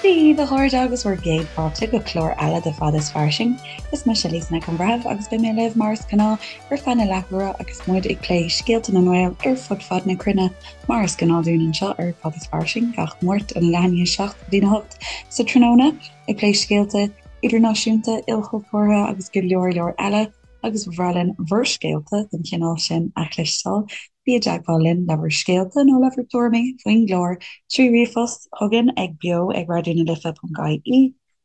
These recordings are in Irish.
Dia daoibh a chairde agus bhur gcéad fáilte go clár eile de Fada is Fairsing. Is mise Lisa Nic an Bhreithimh agus beidh mé libh mar is gnáth ar feadh na leathuaire agus muid ag plé scéalta na nGael ar fud fad na cruinne mar is gnáth dúinn anseo ar Fada is Fairsing gach Máirt óna leath i ndiaidh 7 go dtína 8 sa tráthnóna ag plé scéalta idirnáisiúnta, ilchultúrtha agus go leor leor eile agus ba bhreá linn bhur scéalta den chineál sin a chloisteáil. Bí i dteagmháil linn le bhur scéalta nó le bhur dtuairimí faoin gclár trí ríomhphost chugainn ag beo ag raidió na life ponc ie,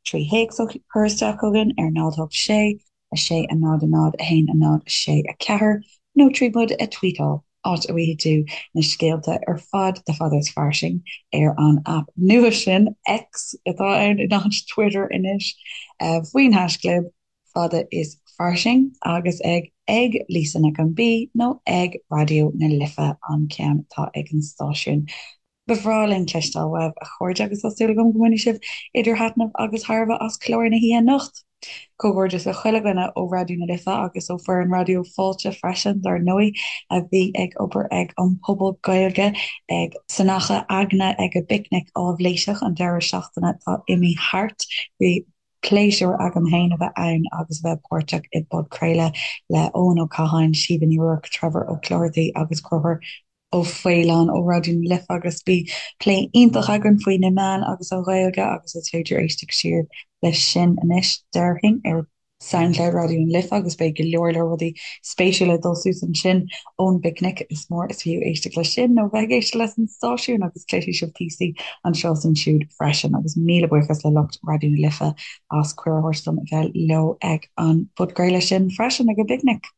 trí théacs a chur isteach chugainn ar 0 8 6 6 0 0 1 0 6 4 nó trí muid a tweetáil, áit a bhfaighidh tú na scéalta ar fad de Fada is Fairsing ar an aip nua sin, X atá ann in áit Twitter anois, faoin haischlib. Fada is Fairsing agus ag ag Lisa Nic an B nó ag Raidió na Life an ceann atá ag an stáisiún. Ba bhreá linn cloisteáil uaibh, a chairde, agus tá súil agam go mbainfidh sibh idir thaitneamh agus thairbhe as clár na hoíche anocht. Comhghairdeas le chuile dhuine ó Raidió na Life agus ó foireann Raidió Fáilte freisin, dar ndóigh, a bhí ag obair ag an Phuball Gaeilge ag san Achadh Eagna ag a bPicnic Áibhléiseach an deireadh seachtaine atá imithe thart. Bhí pléisiúr agam féin a bheith ann agus a bheith páirteach i bpodchraoladh le Eoin Ó Catháin, Síomha Ní Ruairc, Trevor Ó Clochartaigh agus Conchúr Ó Faoláin ó Raidió na Life agus bhí plé iontach againn faoi na meáin agus an Ghaeilge agus is féidir éisteacht siar leis sin anois, déarfainn, ar Soundcloud Raidió na Life agus beidh go leor leor rudaí spéisiúla ag dul suas ansin ón bpicnic. Is mór is fiú éisteacht leis sin nó bheith ag éisteacht leis an stáisiún agus cloisfidh sibh píosaí anseo is ansiúd freisin. Agus míle buíochas le lucht Raidió na Life as cuireadh a thabhairt dom a bheith leo ag an bpodchraoladh sin freisin ag an bpicnic.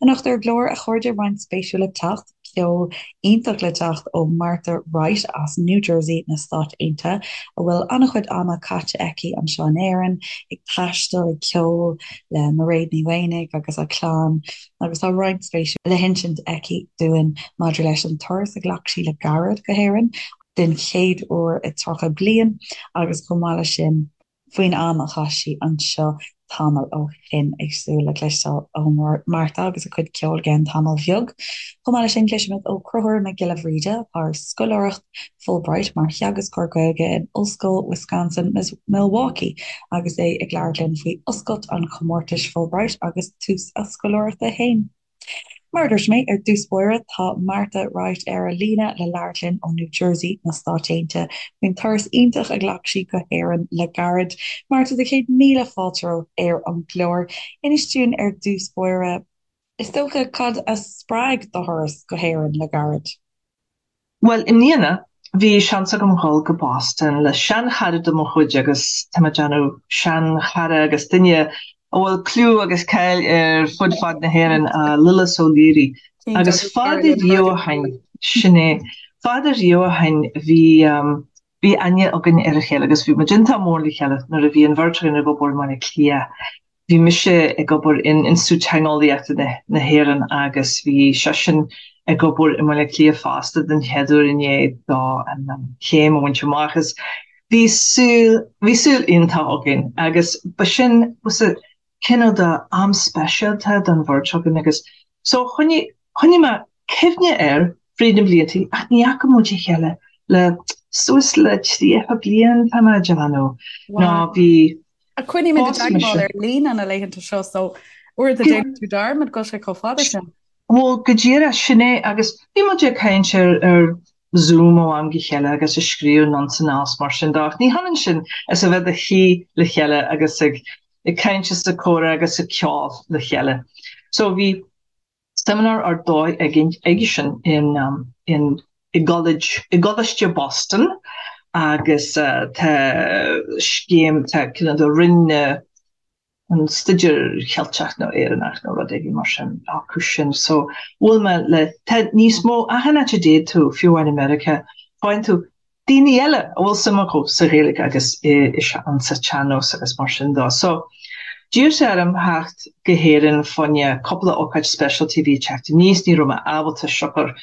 Anocht ar an gclár, a chairde, roinnt spéisiúil le teacht, ceol iontach le teacht ó Martha Wright as New Jersey na Stáit Aontaithe, a bhfuil an-chuid ama caite aici anseo in Éirinn, ag taisteal, ag ceol le Mairéad Ní Mhaonaigh agus a clann, agus tá roinnt spéisiúil le hinsint aici dúinn maidir leis an turas a ghlac sí le gairid go hÉirinn den chéad uair i 30 bliain agus chomh maith leis sin, faoin am a chaith sí anseo tamall ó shin. Ag súil le cloisteáil ó Martha agus a cuid ceoil i gceann tamaill bheag. Chomh maith leis sin, cloisfimid ó Chonchúr Mac Giolla Bhríde, atá ar scoláireacht Fulbright mar theagascóir Gaeilge in Ollscoil Wisconsin Milwaukee agus é ag labhairt linn faoi oscailt an chomórtais Fulbright agus tús a scoláireachta féin. Mar a dúirt mé ar dtús báire, tá Martha Wright ar an líne le labhairt linn ó New Jersey na Stáit Aontaithe faoin turas iontach a ghlac sí go hÉirinn le gairid. Martha, do chéad míle fáilte romhat ar an gclár. Inis dúinn ar dtús báire, is dócha, cad a spreag do thuras go hÉirinn le gairid? Bhuel, i mbliana, bhí seans agam dhul go Boston le seanchara de mo chuid agus tá mé ag déanamh seanchara agus duine a bhfuil clú agus cáil ar fud fad na hÉireann, Lillis O'Leary. Agus fada riamh ó shin, sin é, fada riamh ó shin bhí, bhí aithne againn ar a chéile agus bhí muid iontach mór le chéile nuair a bhí an bheirt againn ag obair i mBaile Átha Cliath. Bhí mise ag obair in Institiúid Teangeolaíochta na hÉireann agus bhí seisean ag obair i mBaile Átha Cliath fosta den chéad uair i ndiaidh dó an chéim a bhaint amach agus bhí saol, bhí saol iontach againn agus ba sin was a cineál de am speisialta don bheirt againn agus so choinnigh, choinnigh mé cuimhne air fríd na blianta ach ní fhaca muid a chéile le suas le 30 bliain tá mé ag déanamh nó bhí Ach coinnímid i dteagmháil ar líne na laethanta seo so uaireanta déanann tú dearmad go bhfuil sé chomh fada sin. Bhuel, go díreach, sin é agus bhí muid ag caint ar ar Zoom ó am go chéile agus ag scríobh anonn is mar sin de ach ní hionann sin is a bheith i do shuí le chéile agus ag ag caint is ag comhrá agus ag ceol le chéile. So bhí seimineár ar dóigh aigesean in in i gCollege i gColáiste Boston agus tá scéim tá cineál de roinn na an Staidéar Cheilteach nó Éireannach nó rud éigin mar sin acu sin so bhuail mé le tá níos mó achan áit a dtéann tú fiú amháin i Meiriceá faigheann tú daoine eile a bhfuil suim acu sa Ghaeilge agus sa tsean-nós agus mar sin de. So, d'iarr sé orm theacht go hÉirinn fá choinne cúpla ócáid speisialta a bhí ag teacht aníos, ní raibh mé ábalta siocair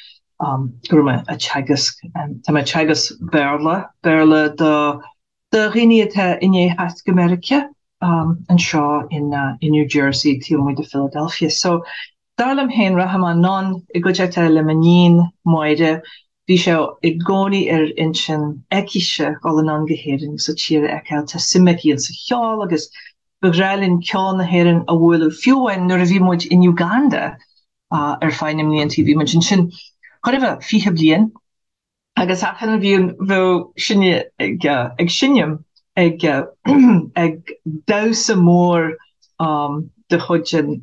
go raibh mé ag teagasc, tá mé ag teagasc Béarla, Béarla do do dhaoine atá i ndiaidh theacht go Meiriceá anseo in in New Jersey taobh amuigh de Philadelphia. So, dar liom féin, rachaidh mé anonn i gcuideachta le m'iníon Máire. Bhí sé i gcónaí ar intinn aicise dhul anonn go hÉirinn agus an tír a fheiceáil. Tá suim aici insa cheol agus ba bhreá linn ceol na hÉireann a bhualadh fiú amháin nuair a bhí muid in Uganda ar feadh na mbliantaí. Bhí muid ansin chóir a bheith 20 bliain agus achan bhliain bheadh sinne ag ag seinm ag ag damhsa mór de chuid an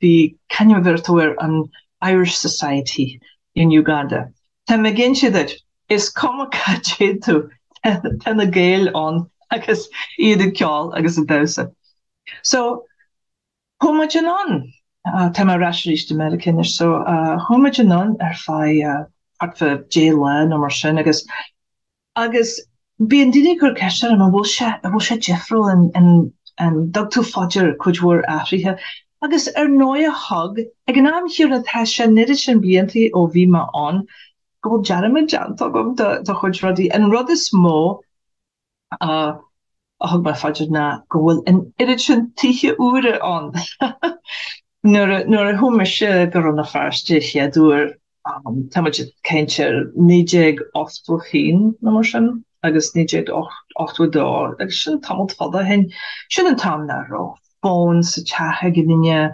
bhí c'ainm a bheir tú air an Irish Society in Uganda. Tá mé ag inse duit, is cuma cá dtéann tú, tá na Gaeil ann agus iad ag ceol agus ag damhsa. So, chuaigh muid anonn, tá mé ar ais arís i Meiriceá anois, so chuaigh muid anonn ar feadh thart fá deich lá nó mar sin agus Agus bíonn daoine ag cur ceist orm an bhfuil sé, an bhfuil sé difriúil, an, an, an dtug tú fá dear cuid mhór athruithe? Agus ar ndóighe thug, ag an am chéanna tá sé an oiread sin bliantaí ó bhí mé ann go bhfuil dearmad déanta agam de, de chuid rudaí. An rud is mó a, a thug mé fá dear ná go bhfuil an oiread sin tithe úra ann. Nuair a, nuair a chuaigh mise go Rann na Feirste chéad uair, Tá muid ag caint ar 1981 nó mar sin agus 1982 agus sin tamall fada ó shin. Sin an t-am nach raibh fón sa teach ag aon duine,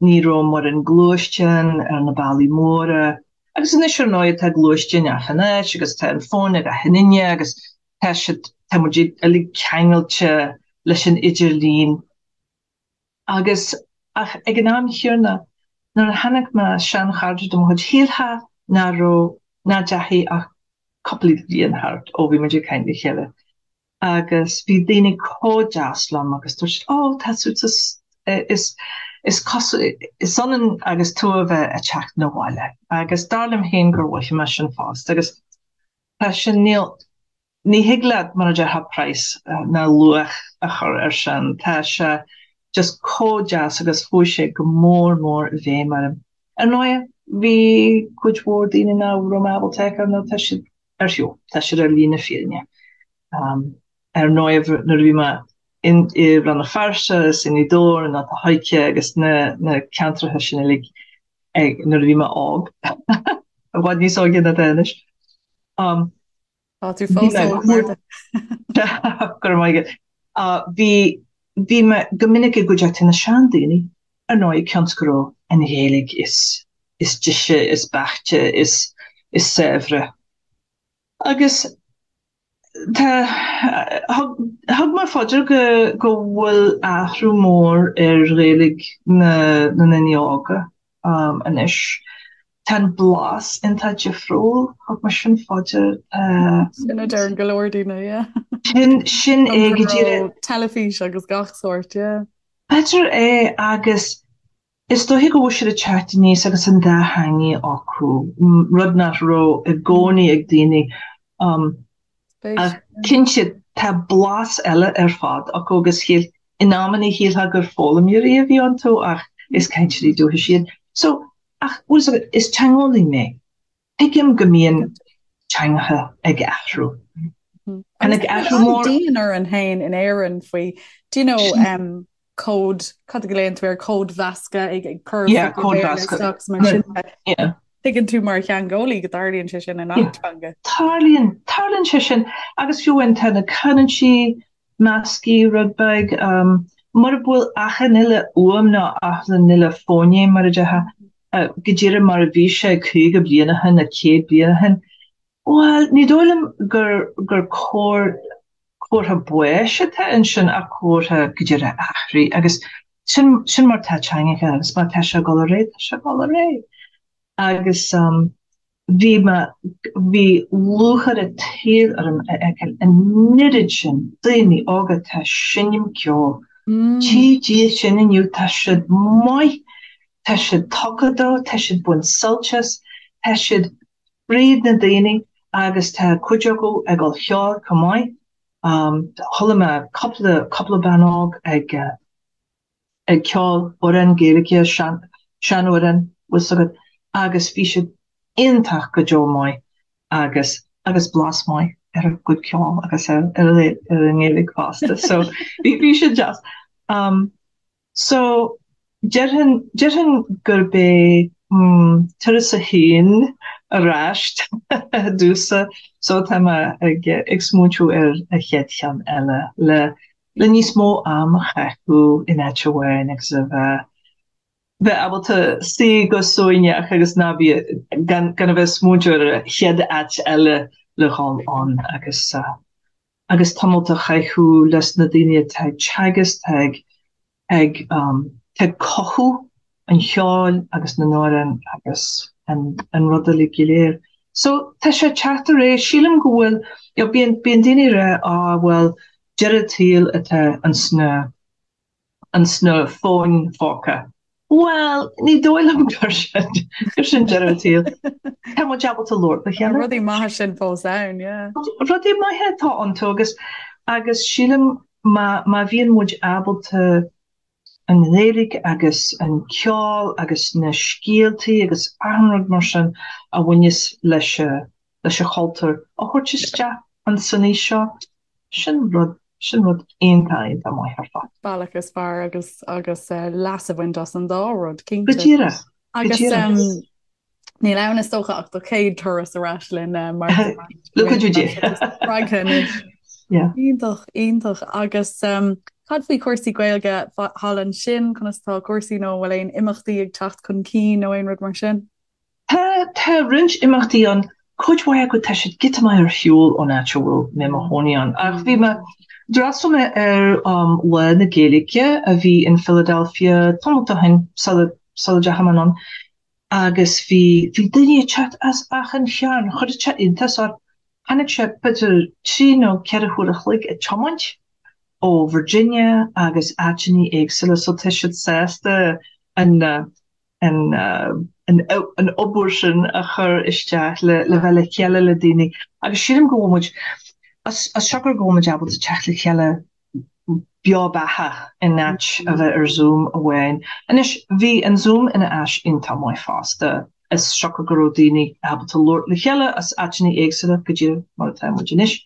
ní raibh mórán gluaisteán ar na bealaí móra agus anois ar ndóigh tá gluaisteáin achan áit agus tá an fón ag achan duine agus tá siad, tá muid uilig ceangailte leis an idirlíon. Agus, ach ag an am chéanna, nuair a chonaic mé seanchairde de mo chuid, shílfeá nach raibh, nach ndeachaigh ach cúpla bliain thart ó bhí muid ag caint le chéile. Agus bhí daoine chomh deas liom agus dúirt siad, 'Ó, tá tú, is, is cosúil, is ionann agus tú a bheith ag teacht 'na bhaile. Agus dar liom féin gur mhothaigh mé sin fosta. Agus tá sin, níl, Ní thig leat, mar a déarfá, praghas ná luach a chur air sin. Tá sé just chomh deas agus chuaigh sé go mór mór i bhfeidhm orm. Ar ndóigh, bhí cuid mhór daoine nach raibh mé ábalta a fheiceáil nó tá siad ar shiúl, tá siad ar shlí na fírinne. Ar ndóigh, nuair a bhí mé i Rann na Feirste is i nGaoth Dobhair nó Port Láirge agus na na ceantracha sin uilig nuair a bhí mé óg, i bhfad níos óige ná atá anois. Tá tú fós óg, Martha. Go raibh maith agat. Bhí, bhí mé go minic i gcuideachta na seandaoine, ar ndóigh, cionn is go raibh an Ghaeilge is, is deise, is beaichte, is, is saibhre. Agus tá, thug, thug mé fá dear go, go bhfuil athrú mór ar Ghaeilge na, na ndaoine óga. anois. Tá an blas iontach difriúil, thug mé sin fá dear. Sin a deireann go leor daoine, yeah. Sin, sin é go díreach. Teilifís agus gach sórt, yeah. B'fhéidir é agus is dóiche go bhfuil siad ag teacht aníos agus an dá theangaidh acu, rud nach raibh i gcónaí ag daoine. Ach cinnte, tá blas eile ar fad acu agus shíl, in amanna shílfeá gur foghlaimeoirí a bhí iontu ach is cainteoirí dúchais iad. So, ach, bhfuil fhios agat, is teangeolaí mé. Tuigim go mbíonn teangacha ag athrú. Tháinig athrú mór. Dian orainn féin in Éirinn faoi, do you know, um, cód, cad a ghlaonn tú air, códmheascadh ag ag cur Yeah, códmheascadh. isteach mar sin. Yeah. Tuigeann tú mar theangeolaí go dtarlaíonn sé sin i ngach teanga. Tarlaíonn, tarlaíonn sé sin agus fiú amháin tá na canúintí measctha rud beag, um, mura bhfuil achan uile fhuaim nó achan uile fóinéim mar a déarfá, uh, go díreach mar a bhí sé 50 bliain ó shin nó 100 bliain ó shin, Bhuel, ní dóigh liom gur gur cóir comhartha báis atá ansin ach comhartha go díreach athraithe agus sin sin mar tá teangacha agus má tá sé ag dul ar aghaidh, tá sé ag dul ar aghaidh. Agus um, bhí mé bhí lúcháir an tsaoil orm a fheiceáil an oiread sin daoine óga atá ag seinm ceoil. Mm. Tchí Dia sin inniu tá siad maith, tá siad tugtha dó, tá siad ag baint sult as, tá siad fríd na daoine agus tá cuid acu ag dul cheoil chomh maith. Chuala mé cúpla cúpla bean óg ag ag ceol amhrán Gaeilge, sean seanamhrán, bhfuil fhios agat, agus bhí siad iontach go deo maith agus agus blas maith ar a gcuid ceoil agus ar ar ar an nGaeilge fosta. So bhí bhí siad deas. Um, So, déarfainn, déarfainn gurb é, mm, turas a haon. ar ais domhsa so tá mé ag ag smaointiú ar an chéad cheann eile le le níos mó am a chaitheamh in áit amháin agus a bheith bheith ábalta suí go suaimhneach agus ná bí gan gan a bheith ag smaointiú ar an chéad áit eile le dhul ann agus agus tamalt a chaitheamh leis na daoine atá ag teagasc, atá ag ag tá ag cothú an cheoil agus na n-amhrán agus an an rud uilig go léir. So tá sé ag teacht ar aghaidh. Sílim go bhfuil, you know, bíonn bíonn daoine ag rá ah bhuel deireadh an tsaoil atá ins na ins na fóin phóca. Bhuel, ní dóigh liom gur sin gur sin deireadh an tsaoil. Tá muid ábalta labhairt le chéile. Tá rudaí maithe sin fós ann, yeah. Rudaí maithe atá iontu agus agus sílim má má bhíonn muid ábalta an Ghaeilge agus an ceol agus na scéaltaí agus achan rud mar sin a bhaineas leis leis an chultúr a thabhairt isteach ins an aois seo, sin rud sin rud iontach iontach maith ar fad. Bealach is fearr agus agus leas a bhaint as an dá rud, cinnte. Go díreach, go Agus díreach. Níl ann is dócha ach do chéad turas ar ais linn mar Le cuidiú Dé. spreagtha anois. Yeah. Iontach, iontach. Agus cad faoi chúrsaí Gaeilge thall ansin, conas tá cúrsaí nó an bhfuil aon imeachtaí ag teacht chun cinn nó aon rud mar sin? Tá, tá roinnt imeachtaí ann, cuid mhaith acu tá siad giota maith ar shiúl ón áit a bhfuil mé i mo chónaí ann. Ach bhí mé, d'fhreastail mé ar Lá na Gaeilge a bhí in Philadelphia tamall ó shin sula, sula dteachaigh mé anonn. agus bhí, bhí daoine ag teacht as achan chearn, chuir sé iontas orm. Tháinig sé b'fhéidir 3 nó 4 huair a chloig ag tiomáint ó Virginia agus áiteanna éagsúla so tá siad sásta an, an, an, an obair sin a chur isteach le, le bheith le chéile le daoine agus sílim go bhfuil muid, as, as siocair go bhfuil muid ábalta teacht le chéile beo beatha in áit a bheith ar Zoom amháin. Anois, bhí an Zoom ina áis iontach maith fosta, as siocair go raibh daoine ábalta labhairt le chéile as áiteanna éagsúla, go díreach mar atá muid anois.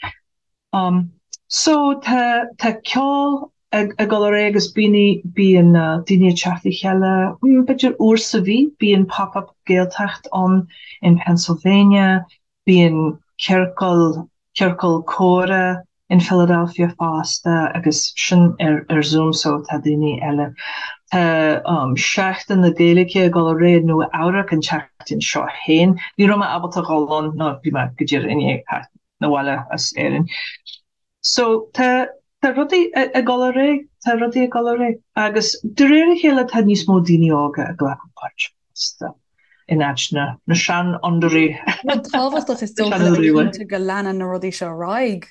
So, tá, tá ceol ag, ag dul ar aghaidh agus bíonn, bíonn daoine ag teacht le chéile, b'fhéidir uair sa mhí, bíonn Pop-Up Gaeltacht ann in Pennsylvania, Bíonn ciorcal, ciorcal comhrá in Philadelphia fosta agus sin ar ar Zoom so tá daoine eile. Tá Seachtain na Gaeilge ag dul ar aghaidh i Nua Eabhrac an tseachtain seo féin. Ní raibh mé ábalta dhul ann nó bhí mé go díreach i ndiaidh theacht 'na bhaile as Éirinn. So tá tá rudaí ag dul ar aghaidh, tá rudaí ag dul ar aghaidh agus de réir a chéile tá níos mó daoine óga ag glacadh páirt fosta in áit na na seanfhondúirí. Rud tábhachtach is dócha le bheith cinnte go leanann na rudaí seo ar aghaidh.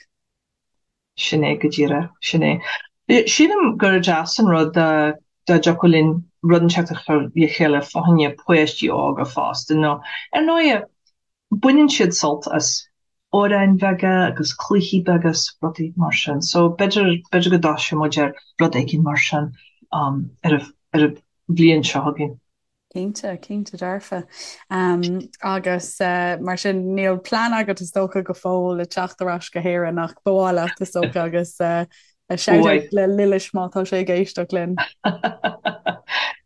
Sin é go díreach, sin é. Sílim gur deas an rud dá dá dtiocfadh linn rud inteacht a chur le chéile fá choinne páistí óga fosta nó ar ndóighe Baineann siad sult as amhráin bheaga agus cluichí beaga is rudaí mar sin. So b'fhéidir, b'fhéidir go dtosóidh muid ar rud éigin mar sin ar an, ar an bhliain seo chugainn. Cinnte, cinnte dearfa. Agus mar sin níl plean agat is dócha go fóill le teacht ar ais go hÉirinn ach ba mhaith leat is dócha agus shout out le Lillis má tá sé ag éisteacht linn.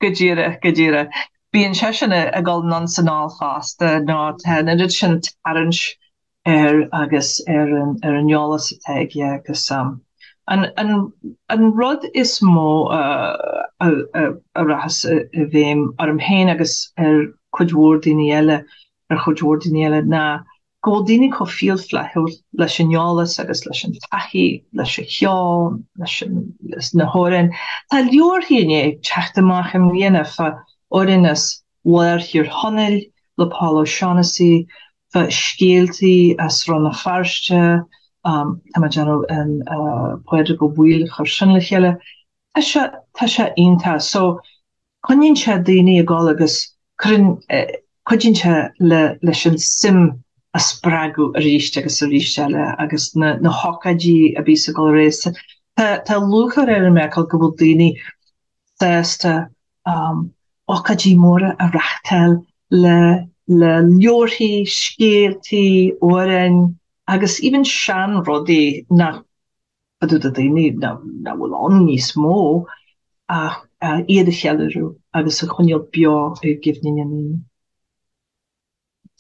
Go díreach, go díreach. Bíonn seisean ag dul anonn 's anall fosta nó tá an oiread sin tarraingt air agus ar an ar an eolas atá aige agus an an an rud is mó a a a rachas i bhfeidhm orm féin agus ar cuid mhór daoine eile ar chuid mhór daoine eile ná go bhfuil daoine chomh fial flaithiúil leis an eolas agus leis an taithí, leis an cheol, leis an, leis na hamhráin. Tá leabharthaí i ndiaidh teacht amach i mbliana fá amhráin as lár Thír Chonaill le Paul O'Shaughnessy, fá scéaltaí as Rann na Feirste, tá mé ag déanamh an Pádraig Ó Baoill a chur sin le chéile. Tá sé, tá sé iontach. So, Coinníonn sé daoine ag dul agus cuireann, cuidíonn sé le leis an suim a spreagadh arís agus arís eile agus na na hócáidí a bhíos ag dul ar aghaidh. Tá tá lúcháir orm a fheiceáil go bhfuil daoine sásta ócáidí móra a reáchtáil le le leabharthaí, scéaltaí, amhráin agus even sean-rudaí nach do daoine nach bhfuil ann níos mó ach iad a cheiliúradh agus a choinneáil beo i gcuimhne na ndaoine.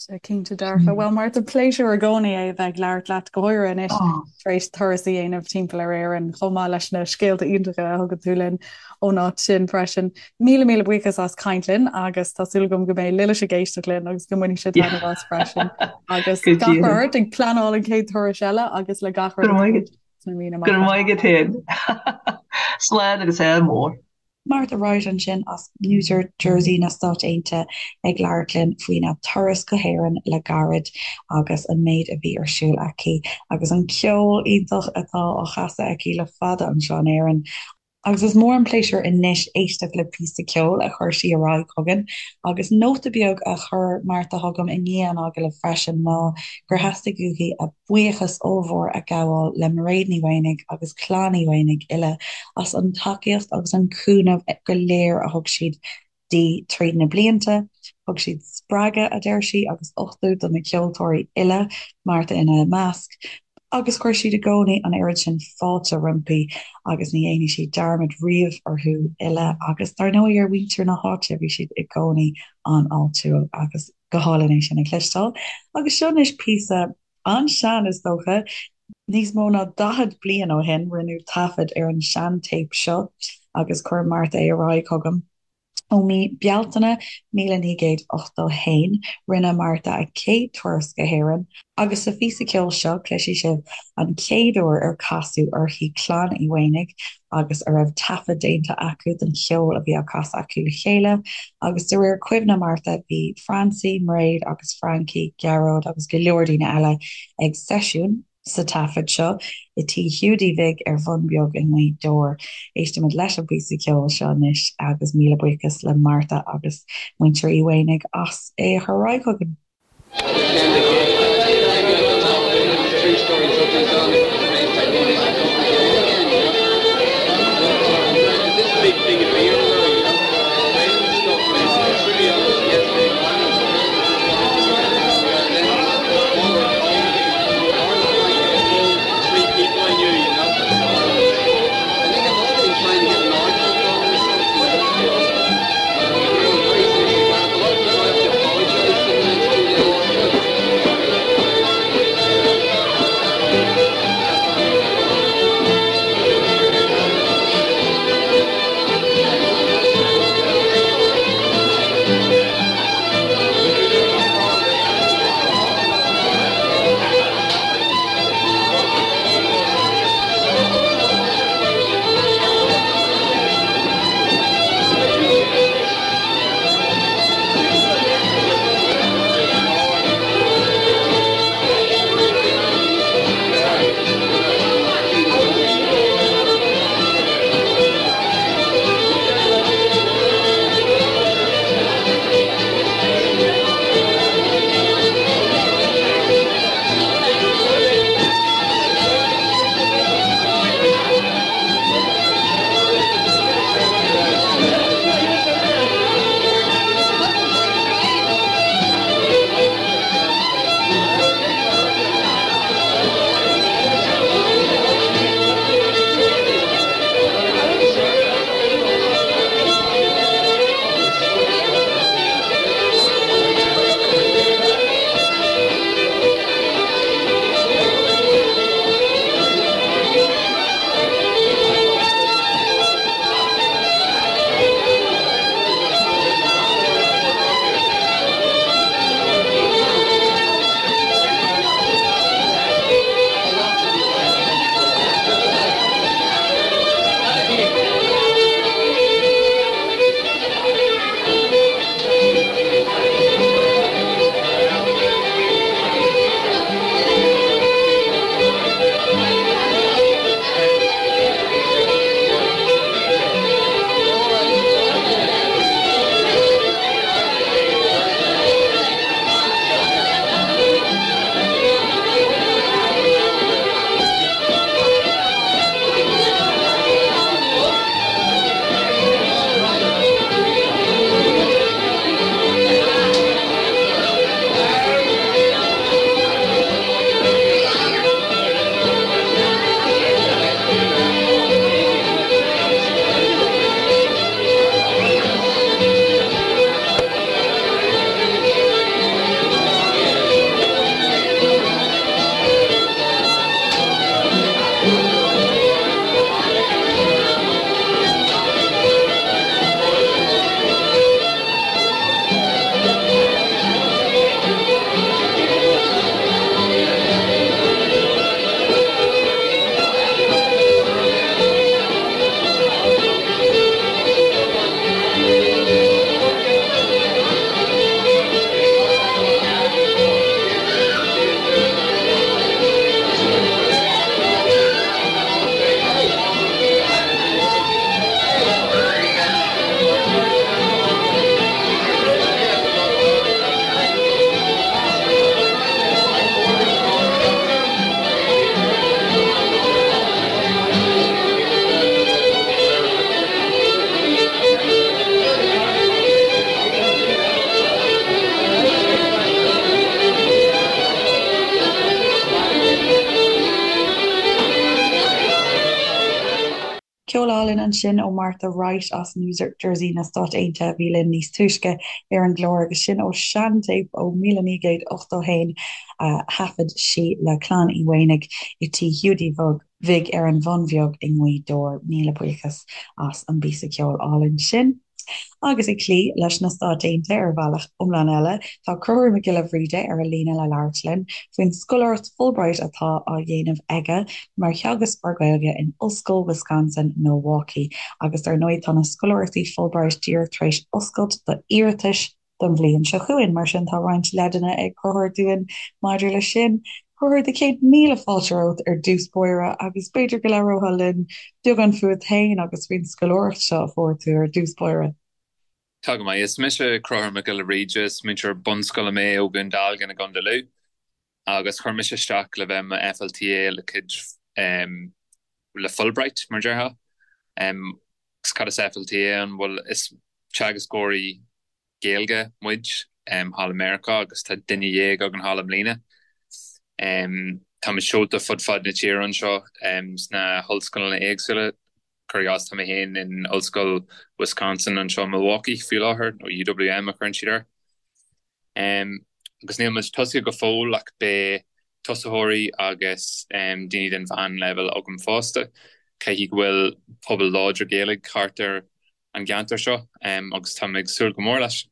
Cinnte dearfa. Bhuel Martha, pléisiúr i gcónaí é a bheith ag labhairt leat, go háirithe anois tar éis turas a dhéanamh timpeall ar Éirinn, chomh maith leis na scéalta iontacha a thugann tú linn ón áit sin freisin. Míle míle buíochas as caint linn agus tá súil agam go mbeidh Lillis ag éisteacht linn agus go mbainfidh sé taitneamh as freisin. Agus gach rath ort ag pleanáil an chéad turais eile agus le gach rud sna míonna amach. Go raibh maith agat féin. Slán agus ádh mór. Martha Wright ansin as New Jersey na Stáit Aontaithe ag labhairt linn faoina turas go hÉirinn le gairid agus an méid a bhí ar siúl aici agus an ceol iontach atá á chasadh aici le fada anseo in Éirinn. Agus is mór an pléisiúr anois éisteacht le píosa ceoil a chuir sí ar aghaidh chugainn. Agus nóta beag a chuir Martha chugam i ndiaidh an agallaimh freisin ná gur theastaigh uaithi a buíochas ollmhór a ghabháil le Mairéad Ní Mhaonaigh agus Clann Uí Mhaonaigh uile as an tacaíocht agus an cúnamh go léir a thug siad di tríd na blianta. Thug siad spreagadh, a deir sí, agus uchtú do na ceoltóirí uile, Martha ina measc, agus chuir siad i gcónaí an oiread sin fáilte roimpi agus ní dhéanfaidh sí dearmad riamh orthu uile agus dar ndóigh ar mhuintir na háite, bhí siad i gcónaí an-fháiltiúil agus go hálainn é sin a chloisteáil. Agus seo anois píosa an-sean is dócha, níos mó ná 40 bliain ó shin rinneadh taifead ar an seantéip seo agus chuir Martha é ar aghaidh chugam. Ó mí Bealtaine 1981 rinne Martha a céad turas go hÉirinn agus sa phíosa ceoil seo cloisfidh sibh an chéad uair ar casadh uirthi Clann Uí Mhaonaigh agus a raibh taifead déanta acu den cheol a bhí á casadh acu le chéile agus de réir cuimhne Martha bhí Francie, Mairéad agus Frankie, Gearóid agus go leor daoine eile ag seisiún sa taifead seo i Tí Hiúdaí Bhig ar Bhun Beag i nGaoth Dobhair. Éistimid leis an bpíosa ceoil seo anois agus míle buíochas le Martha agus muintir Uí Mhaonaigh as é a chur ar aghaidh chugainn. Ceol álainn ansin ó Martha Wright as New Jersey na Stát Aontaithe a bhí linn níos túisce ar an gclár agus sin ó seantéip ó 1981 a thaifead sí le Clann Uí Mhaonaigh i Tí Hiúdaí Bhig ar an Bhun Bheag i nGaoth Dobhair. Míle buíochas as an bpíosa ceoil álainn sin. Agus ag cloí leis na Stáit Aontaithe ar bhealach iomlán eile, tá Conchúr Mac Giolla Bhríde ar an líne le labhairt linn faoin scoláireacht Fulbright atá á dhéanamh aige mar theagascóir Gaeilge in Ollscoil Wisconsin, Milwaukee. Agus dar ndóigh tá na scoláireachtaí Fulbright díreach tar éis oscailt d'iarratais don bhliain seo chugainn, mar sin tá roinnt leideanna ag Conchúr dúinn maidir leis sin. Conchúr, do chéad míle fáilte romhat ar dtús báire agus b'fhéidir go labhrófá linn beagán fúat féin agus faoin scoláireacht seo a fuair tú ar dtús báire. Tá go maith. Is mise Conchúr Mac Giolla Bhríde, is múinteoir bunscoile mé ó Dhún Dealgan i gContae Lú agus chuir mise isteach le bheith i mo FLTA le cuid le Fulbright, mar a déarfá. Agus cad is FLTA ann? Bhuel, is teagascóirí Gaeilge muid thall i Meiriceá agus tá duine dhéag againn thall i mbliana. Táimid seolta fud fad na tíre anseo sna hollscoileanna éagsúla. Cuir i gcás, tá mé féin in Ollscoil Wisconsin anseo i Milwaukee faoi láthair, nó UWM a chuireann siad air. Agus níl muid tosaithe go fóill ach beidh tosaitheoirí agus daoine den mheánleibhéal agam fosta. Caithfidh go bhfuil pobal láidir Gaeilge thart ar an gceantar seo agus tá mé ag súil go mór leis.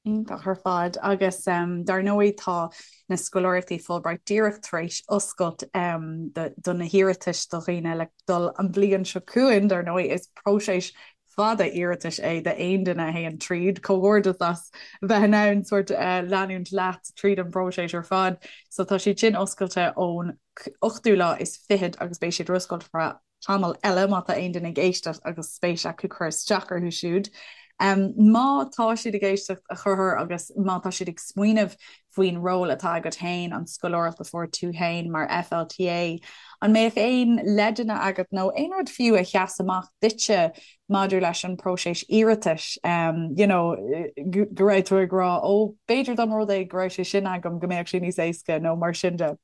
Iontach ar fad. Agus dar ndóigh tá na scoláireachtaí Fulbright díreach tar éis oscailt do na hiarratais do dhaoine le dul an bhliain seo chugainn. Dar ndóigh is próiseas fada iarratais é d'aon duine a théann tríd. Comhghairdeas as bheith in ann sórt leanúint leat tríd an bpróiseas ar fad. So tá siad sin oscailte ón ochtú lá is fichead agus beidh siad ar oscailt ar feadh tamall eile má tá aon duine ag éisteacht agus spéis acu cur isteach orthu siúd. Má tá siad ag éisteacht a Chonchúir agus má tá siad ag smaoineamh faoin ról atá agat féin, an scoláireacht a fuair tú féin mar FLTA, an mbeadh aon leideanna agat nó aon rud fiú a sheas amach duitse maidir leis an bpróiseas iarratais, you know, go raibh tú ag rá ó b'fhéidir dá mba rud é go raibh sé sin agam go mbeadh sé níos éasca nó mar sin de?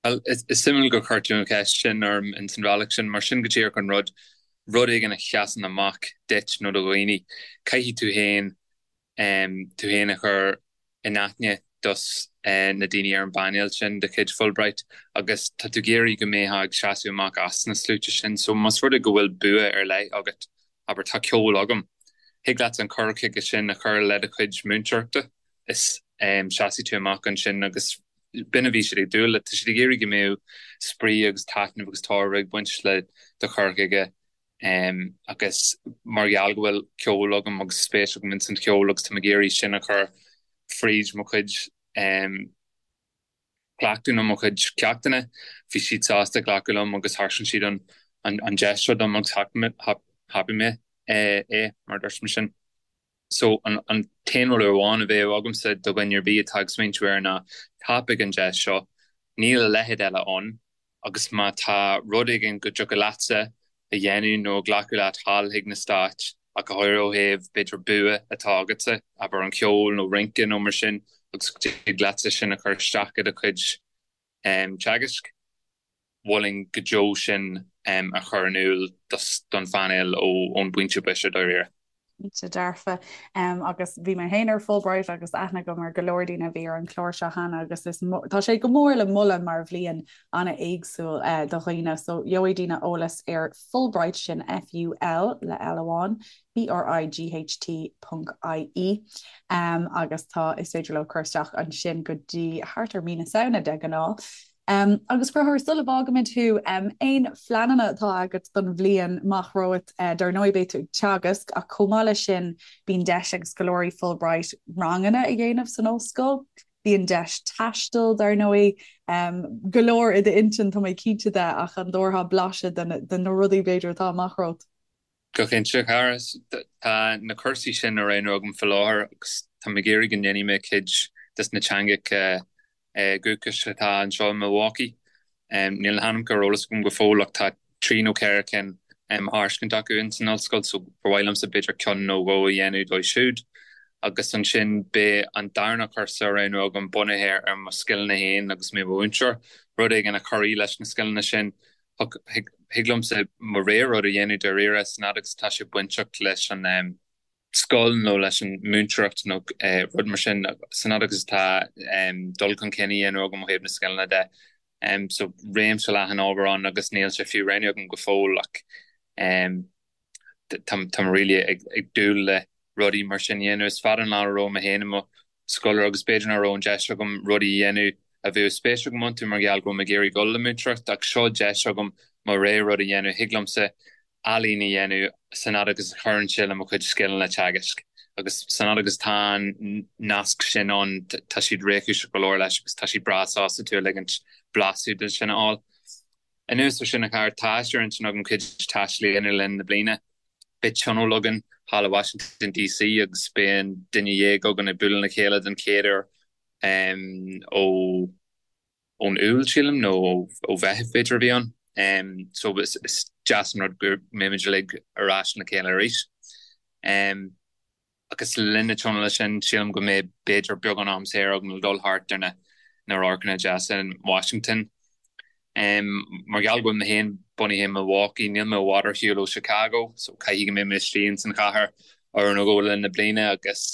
Bhuel, is suimiúil gur chuir tú an cheist sin orm ins an bhealach sin, mar sin go díreach an rud, rud éigin a sheasann amach duit nó do dhaoine, caithfidh tú féin tú féin a chur in aithne dos na daoine ar an bpainéal sin de chuid Fulbright agus tá tú ag iarraidh go mbeifeá ag seasamh amach as na sluaite sin. So más rud é go bhfuil bua ar leith agat, abair tá ceol agam, thig leat an cur chuige sin a chur le do chuid múinteoireachta is seasfaidh tú amach ansin agus b'in a bhí siad ag dúil le. Tá siad ag iarraidh go mbeadh spraoi agus taitneamh agus tairbhe ag baint le do chur chuige agus mar gheall go bhfuil ceol agam agus spéis agam ins an cheol agus táim ag iarraidh sin a chur fríd mo chuid cleachtadh nó mo chuid ceachtanna, bhí siad sásta glacadh liom agus thairiscin siad an deis seo dom agus thapaigh mé é, mar a dúirt mé sin. So an t-aon rud amháin a bheadh agamsa do dhuine ar bith atá ag smaointiú air ná tapaigh an deis seo, níl a leithéid eile ann agus má tá rud éigin go dtiocfadh leatsa a dhéanamh nó a ghlacadh leat thall chuig na Stáit, ach go háirithe ó thaobh b'fhéidir bua atá agatsa, abair an ceol nó rince nó mar sin agus go dtig leatsa sin a chur isteach i do chuid teagaisc. Mholfainn go deo sin a chur in iúl don phainéal ón bpointe boise dáiríre. Cinnte dearfa. Agus bhí mé féin ar Fulbright agus aithne agam ar go leor daoine a bhí ar an chlár seo cheana agus is tá sé go mór le moladh mar bhliain an-éagsúil do dhaoine. So gheobhaidh daoine eolas ar Fulbright, sin F-U-L le L amháin, B-R-I-G-H-T ponc I-E agus tá is féidir leo cur isteach ansin go dtí thart ar mí na Samhna de ghnáth. Agus a Chonchúir, sula bhfágaimid thú, aon phleananna atá agat don bhliain amach romhat? Dar ndóigh beidh tú ag teagasc ach chomh maith leis sin bíonn deis ag scoláirí Fulbright ranganna a dhéanamh san ollscoil, bíonn deis taisteal dar ndóigh. Go leor i d'intinn tá mé cinnte de ach an dtabharfá blaiseadh de na rudaí b'fhéidir atá amach romhat? Go cinnte, a chara. Tá na cúrsaí sin á roghnú agam faoi láthair agus táim ag iarraidh go ndéanfaidh mé cuid des na teangacha dúchais atá anseo i Milwaukee. Níl na hainmneacha ar eolas agam go fóill ach tá trí nó ceithre cinn á thairiscint acu ins an ollscoil so ba mhaith liomsa b'fhéidir ceann nó dhó a dhéanamh dóibh siúd. Agus ansin beidh an darna cúrsa á roghnú agam bunaithe ar mo scileanna féin agus mé i mo mhúinteoir, rud éigin a chuirfidh leis na scileanna sin. Thig liomsa mo rogha rud a dhéanamh dáiríre san fhad agus atá sé bainteach leis an scoil nó leis an múinteoireacht nó rud mar sin, san fhad agus atá dul chun cinn á dhéanamh agam ó thaobh na scileanna de. So réimse leathan ábhar ann agus níl sé fiú roghnaithe agam go fóill ach tá mé really ag dúil le rudaí mar sin a dhéanamh. Is fada an lá a raibh mé féin i mo scoláire agus b'fhéidir nach raibh an deis agam rudaí a dhéanamh a bheadh spéis agam iontu mar gheall go raibh mé ag iarraidh dul le múinteoireacht ach seo deis agam mo rogha rud a dhéanamh. Thig liomsa ealaín a dhéanamh san fhad agus a chuireann sé le mo chuid scileanna teagaisc agus san fhad agus tá an nasc sin ann tá siad réchúiseach go leor leis agus tá siad breá sásta tú a ligint blaiseadh de sin a fháil. Anuas ar sin, a chara, tá sé ar intinn agam cuid taistil a dhéanamh le linn na bliana. Beidh tionól againn thall i Washington DC agus beidh an duine dhéag againn ag bualadh le chéile den chéad uair ó ón Iúil, sílim, nó ó Mheitheamh b'fhéidir a bhí ann. So is deas an rud go mbeimid uilig ar ais le chéile arís. Agus le linn na tionóla sin, sílim go mbeidh b'fhéidir beagán am saor agam le dul thart ar na na radharcanna deasa in Washington. Mar gheall go bhfuil mé féin bunaithe i Milwaukee, níl mé i bhfad ar shiúl ó Chicago, so caithfidh go mbeidh mé istigh ins an chathair uair nó dhó le linn na bliana agus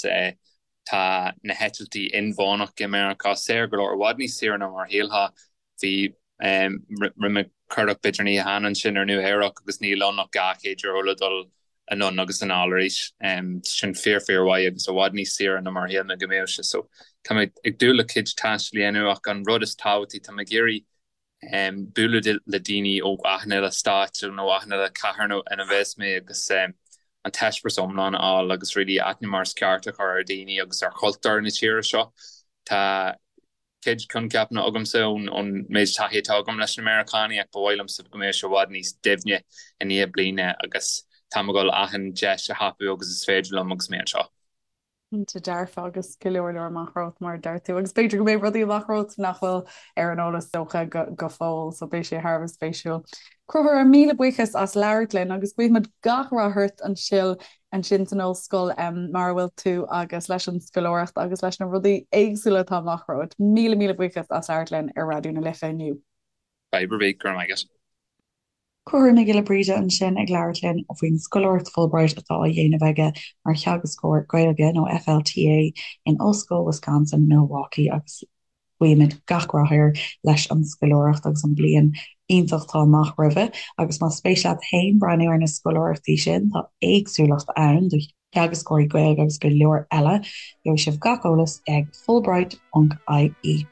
tá na heitiltí inmheánach i Meiriceá saor go leor, i bhfad níos saoire ná mar a shílfeá. Bhí, rinne mé cuardach b'fhéidir an oíche cheana ansin ar Nua Eabhrac agus níl ann ach €200 le dul anonn agus anall arís. Sin fíor fíor mhaith agus i bhfad níos saoire ná mar a shíl mé go mbeadh sé. So tá mé ag dúil le cuid taistil a dhéanamh ach an rud is tábhachtaí tá mé ag iarraidh bualadh le daoine ó achan uile stáit nó achan uile cathair nó ina bheas mé agus an t-eispéireas iomlán a fháil agus really aithne mar is ceart a chur ar dhaoine agus ar chultúr na tíre seo. Tá cuid coincheapanna agamsa ón méid taithí atá agam leis na Meiriceánaigh ach ba mhaith liomsa go mbeadh sé i bhfad níos doimhne i ndiaidh bliana agus táim ag dul achan deis a thapú agus is féidir liom agus mé anseo. Cinnte dearfa agus go leor leor amach romhat mar a deir tú agus b'fhéidir go mbeidh rudaí amach romhat nach bhfuil ar an eolas dócha go fóill so beidh sé thar a bheith spéisiúil. Conchúr, míle buíochas as labhairt linn agus guímid gach rath ort ansin ansin san ollscoil mar a bhfuil tú agus leis an scoláireacht agus leis na rudaí éagsúla atá amach romhat. Míle míle buíochas as labhairt linn ar Raidió na Life inniu. Fadhb ar bith, go raibh maith agat. Conchúr Mac Giolla Bríde ansin ag labhairt linn faoin scoláireacht Fulbright atá á dhéanamh aige mar theagascóir Gaeilge, nó FLTA, in Ollscoil Wisconsin, Milwaukee agus Guímid gach rath air leis an scoláireacht agus an bliain iontach atá amach roimhe agus más spéis leat féin breathnú ar na scoláireachtaí sin, tá éagsúlacht ann do theagascóirí Gaeilge agus go leor eile. Gheobhaidh sibh gach eolas ag fulbright.ie.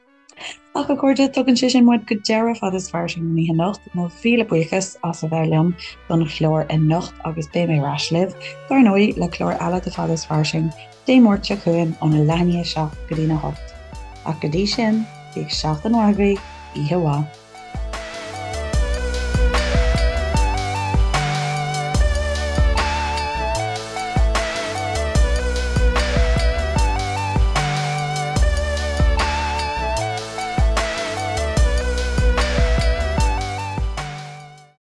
Ach a chairde, tugann sé sin muid go deireadh Fada is Fairsing don oíche anocht. Mo mhíle buíochas as a bheith liom don chlár anocht agus beidh mé ar ais libh, dar ndóigh, le clár eile de Fada is Fairsing. Dé Máirt seo chugainn óna leath i ndiaidh a 7 go dtína 8. Ach go dtí sin, bíodh seachtain mhaith agaibh, oíche mhaith.